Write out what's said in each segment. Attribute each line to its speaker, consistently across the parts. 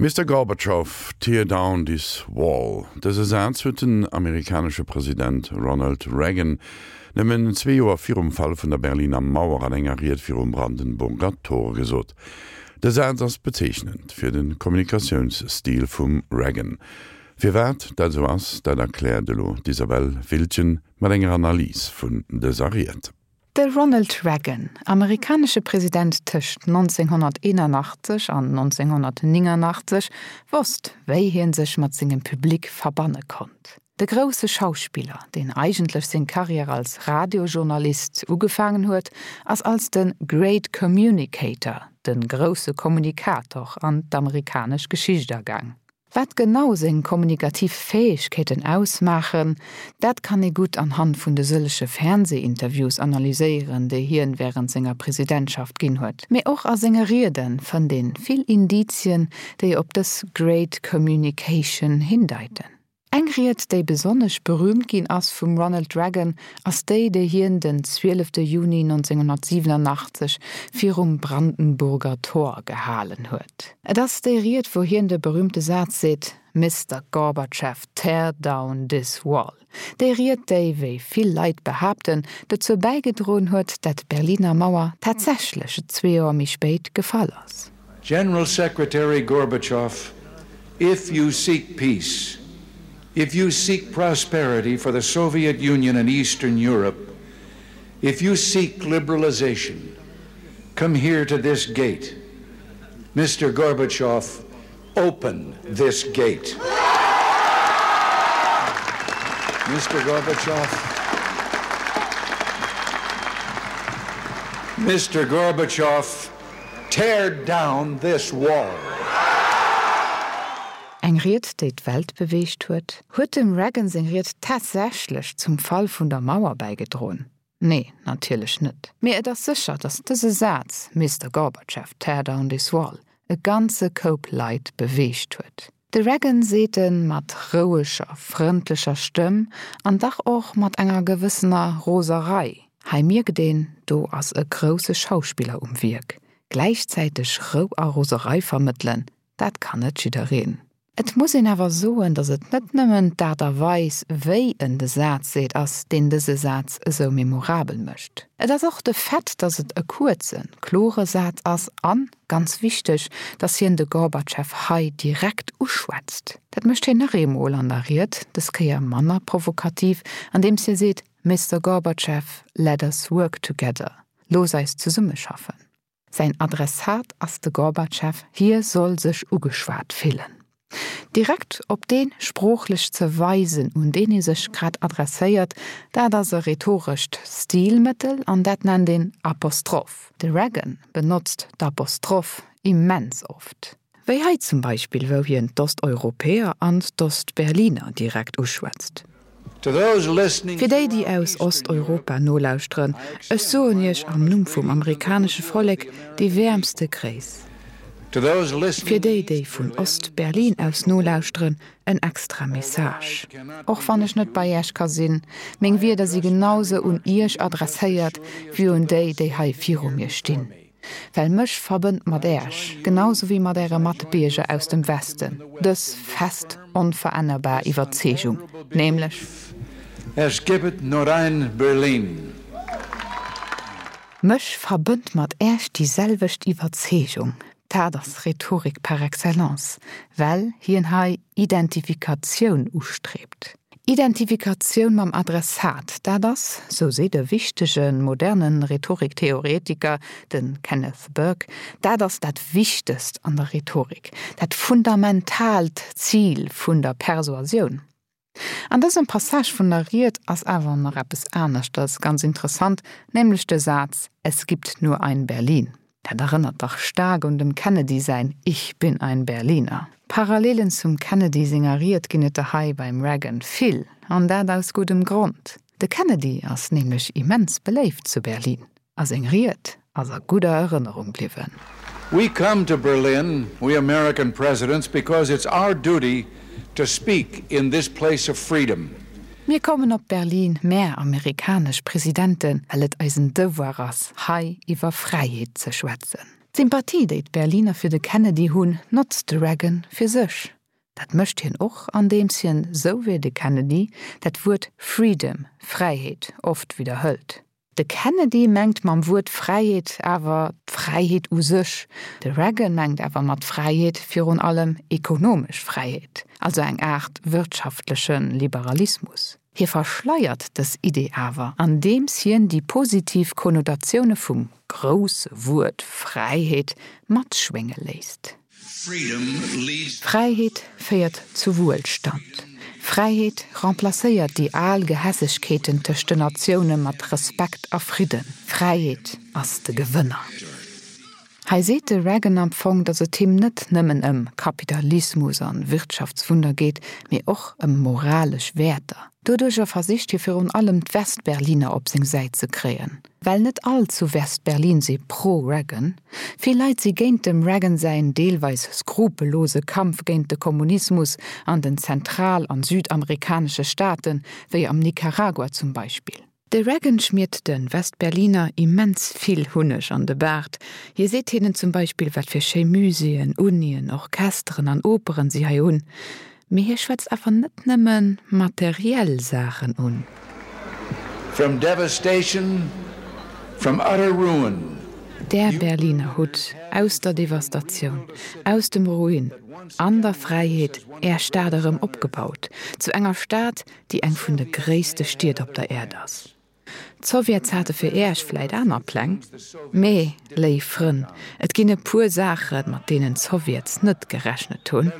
Speaker 1: Mister Gorbatschow, tear down this wall. Dëse Saz huet den amerikanesche President Ronald Reagan nëmmen zwee Joer virum Fall vun der Berliner Mauer an enger Ried virum Brandenburger Tor gesot. De Saz ass bezeechnend fir de Kommunikatiounsstil vum Reagan. Firwat dat esou ass, dat erkläert elo d'Isabelle Wiltgen mat enger Analys vun dëser Ried.
Speaker 2: De Ronald Reagan, amerikanesche President tëscht 1981 an 1989, wosst, wéi hien sech mat sengem Public verbanne konnt. De grousse Schauspiller, deen eigentlech seng Karriär als Radiojournalist ugefaangen huet, ass als de Great Communicator, de grousse Kommunikator, an d'amerikanesch Geschicht agaang. Wat genau seng kommunikativ Fäegkeeten ausmaachen, dat kann ee gutt anhand vun de sëllege Fernseh-Interviews analyséieren, déi hien wärend senger Presidentschaft ginn huet. Mee och a senge Riede fënnt een vill Indizien, déi op dës Great Communication hindeiten. Eng Ried, déi besonnesch berüümt ginn ass vum Ronald Reagan, ass déi, déi hien den 12 Juni 1987 virum Brandenburger Tor gehalen huet. Et ass déi Ried, wou hien de berüümte Saz seet, Mister Gorbachev, tear down this wall. Déi Ried, déi, wéi vill Leit behaapten, dozou bäigedroen huet, dat d'Berliner Mauer tatsächlech zwee Joer méi spéit gefall ass.
Speaker 3: General Secretary Gorbachev, if you seek peace, if you seek prosperity for the Soviet Union and Eastern Europe, if you seek liberalization, come here to this gate. Mr. Gorbachev, open this gate. Mr. Gorbachev, Mr. Gorbachev, Tear down this wall!
Speaker 2: Eng Ried, déi d'Welt beweegt huet. Huet dem Reagan seng Ried tatsächlech zum Fall vun der Mauer bäigedroen? Nee, natierlech net. Mee et ass sécher, datt dëse Saz, Mister Gorbachev, tear down this wall, e ganze Koup Leit beweegt huet. De Reagan seet e mat roueger, frëndlecher Stëmm an dach och mat enger gewëssener Roserei. Hei mierkt een, do ass e grousse Schauspiller um Wierk. Gläichzäiteg Rou a Roserei vermëttelen, dat kann net jiddereen. Et muss een awer soen, datt et net nëmmen d'Aart a Weis, wéi en de Saz seet, ass, deen dëse Saz esou memorabel mécht. Et ass och de Fait, datt et e kuerzen, klore Saz ass an, Ganz wichteg, dass hien de Gorbatschew hei direkt uschwätzt. Dat mécht hien nach eemol an der Ried, dës Kéier manner provokativ, andeems hie seet, Mister Gorbatschew, let us work together, looss eis zesummeschaffen. Säin Adressat ass de Gorbatschew, hie soll sech ugeschwat fillen. Direkt op dee sproochlech ze weisen, un deen ee sech grad adresséiert, dat ass e rhetorescht Stilmëttel an dat nennt een Apostroph. De Reagan benotzt d'Apostroph immens oft. Wéi hei zum Beispill, wou hien d'Osteuropäer an d'Ostberliner direkt uschwätzt. Fir déi, déi aus Osteuropa nolauschteren, ech soen Iech am Numm vum amerikanesche Vollek déi wäermste Gréiss. Fir déi, déi vun Ost-Berlin aus nolauschteren, en extra Message. Och wann ech net bei Iech ka sinn, meng Wierder si genau sou un Iech adresséiert wéi un déi, déi hei viru mir stinn. Well mech verbënnt mat Äerch, genau sou wéi mat Äre Matbierger aus dem Westen, dës fest, onverännerbar Iwwerzeegung, nämlech.
Speaker 3: Es gibt nur ein Berlin.
Speaker 2: Mech verbënnt mat Äerch déi selwecht Iwwerzeegung. Dat ass Rhetorik par excellence, well hien hei Identifikatioun ustreebt. Identifikatioun mam Adressat, dat ass, sou seet e wichtege moderne Rhetoriktheoretiker, de Kenneth Burke, dat ass dat Wichtegst an der Rhetorik, dat fundamentaalt Zil vun der Persuasioun. An dësem Passage vun der Ried ass awer nach eppes aneschters ganz interessant, nämlech de Saz Es gibt nur ein Berlin. Dat erënnert dach staark un dem Kennedy säin Ich bin ein Berliner. Parallelen zum Kennedy senger Ried ginn et der hei beim Reagan vill, an dat aus guddem Grond. De Kennedy ass nämlech immens beléift zu Berlin, a seng Ried ass a gudder Erënnerung bliwwen.
Speaker 3: We come to Berlin, we American presidents, because it's our duty to speak in this place of freedom.
Speaker 2: Mir kommen op Berlin, mär amerikanesch Presidenten, well et eisen Devoir ass, hei iwwer Fräiheet ze schwätzen. D'Sympathie, déi d'Berliner fir de Kennedy hunn, notzt de Reagan fir sech. Dat mécht hien och, andeems hien, sou wéi de Kennedy, dat Wuert Freedom, Fräiheet, oft widderhëlt. De Kennedy mengt mam Wuert Fräiheet awer d'Fräiheet u sech, de Reagan mengt awer mat Fräiheet virun allem ekonomesch Fräiheet, also eng Aart wirtschaftleche Liberalismus. Hie verschleiert dës Idee awer, andeems hien déi positiv Konnotatioune vum grousse Wuert Fräiheet matschwénge léisst. Fräiheet féiert zu Wuelstand. Fräiheet remplacéiert déi al Gehässegkeeten tëscht den Natioune mat Respekt a Fridden. Fräiheet ass de Gewënner. Hei seet de Reagan am Fong, datt et him net nëmmen ëm Kapitalismus an Wirtschaftswunder geet, mee och ëm moralesch Wäerter. Doduercher versicht hie virun allem d'Westberliner op seng Säit ze kréien. Well net all zu Westberlin si pro-Reagan. Vill Leit si géint dem Reagan säin deelweis skrupellose Kampf géint de Kommunismus an den zentral an südamerikanesche Staaten, wéi am Nicaragua zum Beispill. De Reagan schmiert de Westberliner immens vill Hunneg an de Baart. Hie seet hinnen zum Beispill, wat fir schéi Muséeën, Unien, Orchesteren an Operen si hei hunn. Mee hie schwätzt awer net nëmme materiell Saachen un.
Speaker 3: From devastation, from utter ruin.
Speaker 2: Där Berliner hutt aus der Devastatioun, aus dem Ruin an der Fräiheet är Stad erëm opgebaut, zu enger Stad, déi eng vun de gréisste Stied op der Äerd ass. D'Sowjets hate fir Äech vläit aner Pläng, mee, léif Frënn, et ginn e puer Saachen, mat deenen d'Sowjets net gerechnet hunn,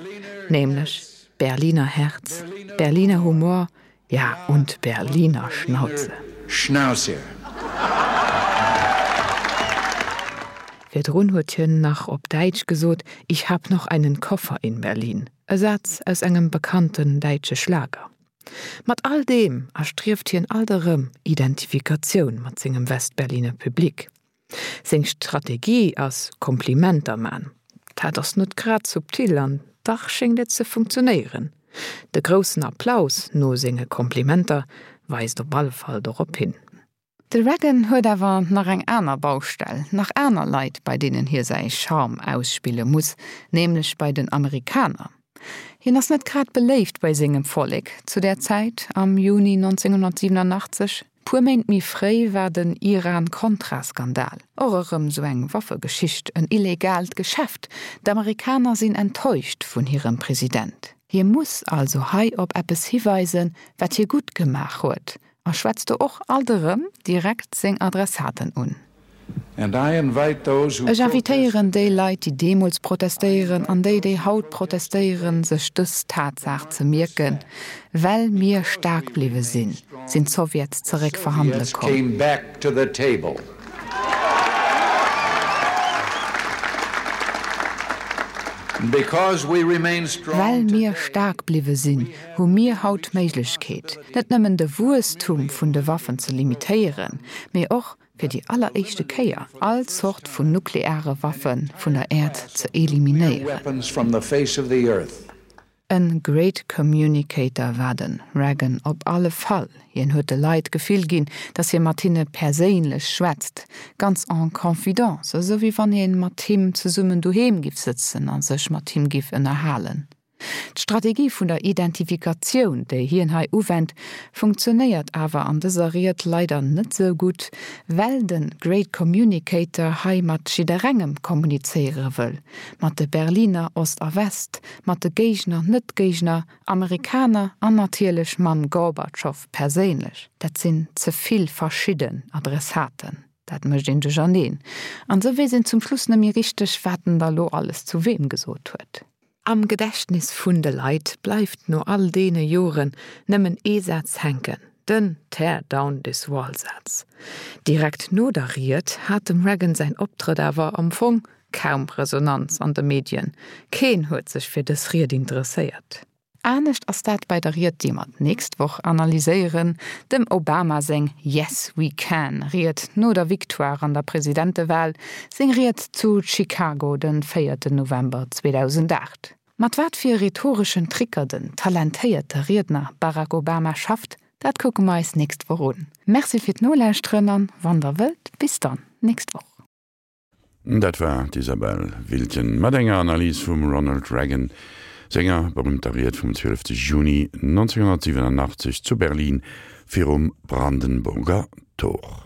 Speaker 2: nämlech Berliner Herz, Berliner Humor, ja und Berliner Schnauze.
Speaker 3: Schnauze.
Speaker 2: Virdrun huet hien nach op Däitsch gesot, Ich hab noch einen Koffer in Berlin. E Saz aus engem bekannten däitsche Schlager. Mat all deem erstrieft hien alt erëm Identifikatioun mat sengem Westberliner Public. Seng Strategie ass Komplimenter man. Dat ass net grad subtil an dach schéngt et ze funktionéieren. De groussen Applaus no senge Komplimenter weist op alle Fall dorop hin. De Reagan huet awer nach eng aner Baustell, nach aner Leit, bei deenen hie säi Charme ausspille muss, nämlech bei den Amerikaner. Hien ass net grad beléift bei sengem Vollek zu där Zäit, am Juni 1987. Puer Méint méi fréi war den Iran-Contra-Skandal, och erëm sou eng Waffegeschicht, en illegaalt Geschäft. D'Amerikaner sinn enttäuscht vun hirem President. Hie muss also hei op eppes hiweisen, wat hie gutt gemaach huet, A schwätzt do och alt erëm direkt seng Adressaten un. Ech invitéieren déi Leit, déi deemools protestéieren an déi, déi haut protestéieren, sech dës Tatsaach ze mierken, Well mir staark bliwwe sinn, sinn d'Sowjets zeréck verhandele komm. Well mir staark bliwwe sinn, hu mir haut d'Méiglechkeet, net nëmmen de Wuesstum vun de Waffen ze limitéieren, mee och fir déi alleréischte Kéier all Zort vun nukleare Waffe vun der Äerd ze eliminéieren. E great communicator war de Reagan op alle Fall. Hien huet de Leit d'Gefill ginn, datt hie mat hinne perséinlech schwätzt, ganz en confidence, esou wéi wann ee mat him zesummen doheem giff sëtzen a sech mat him giff ënnerhalen. D'Strategie vun der Identifikatioun, déi hien hei uwennt, funktionéiert awer an dëser Ried leider net sou gutt, well de Great Communicator hei mat jidderengem kommunizéiere wëll, mat de Berliner, Ost a West, mat de Géigner, Net-Géigner, Amerikaner an natierlech mam Gorbatschow perséinlech. Dat sinn ze vill verschidden Adressaten, dat mécht een duercherneen an sou weess een zum Schluss net méi richteg, wat en da lo alles zu weem gesot huet. Am Gedächtnis vun de Leit bleift no all deene Joren nëmmen ee Saz hänken, den Tear down this wall-Saz. Direkt no der Ried hat dem Reagan säin Optrëtt awer am Fong kaum Resonanz an de Medien. Keen huet sech fir dës Ried interesséiert. Anescht ass dat bei der Ried, déi mer d'nächst Woch analyséieren, dem Obama seng Yes, we can Ried no der Victoire an der Presidentewal, seng Ried zu Chicago den véierten November 2008. Mat wat fir rhetoreschen Tricker den talentéierte Riedner Barack Obama schafft, dat kucke mer eis nächst Woch un. Merci fir d'Nolauschteren an, wann der wëllt, bis dann nächst Woch.
Speaker 1: Dat war d'Isabelle Wiltgen mat enger Analys vum Ronald Reagan senger berüümter Ried vum 12 Juni 1987 zu Berlin virum Brandenburger Tor.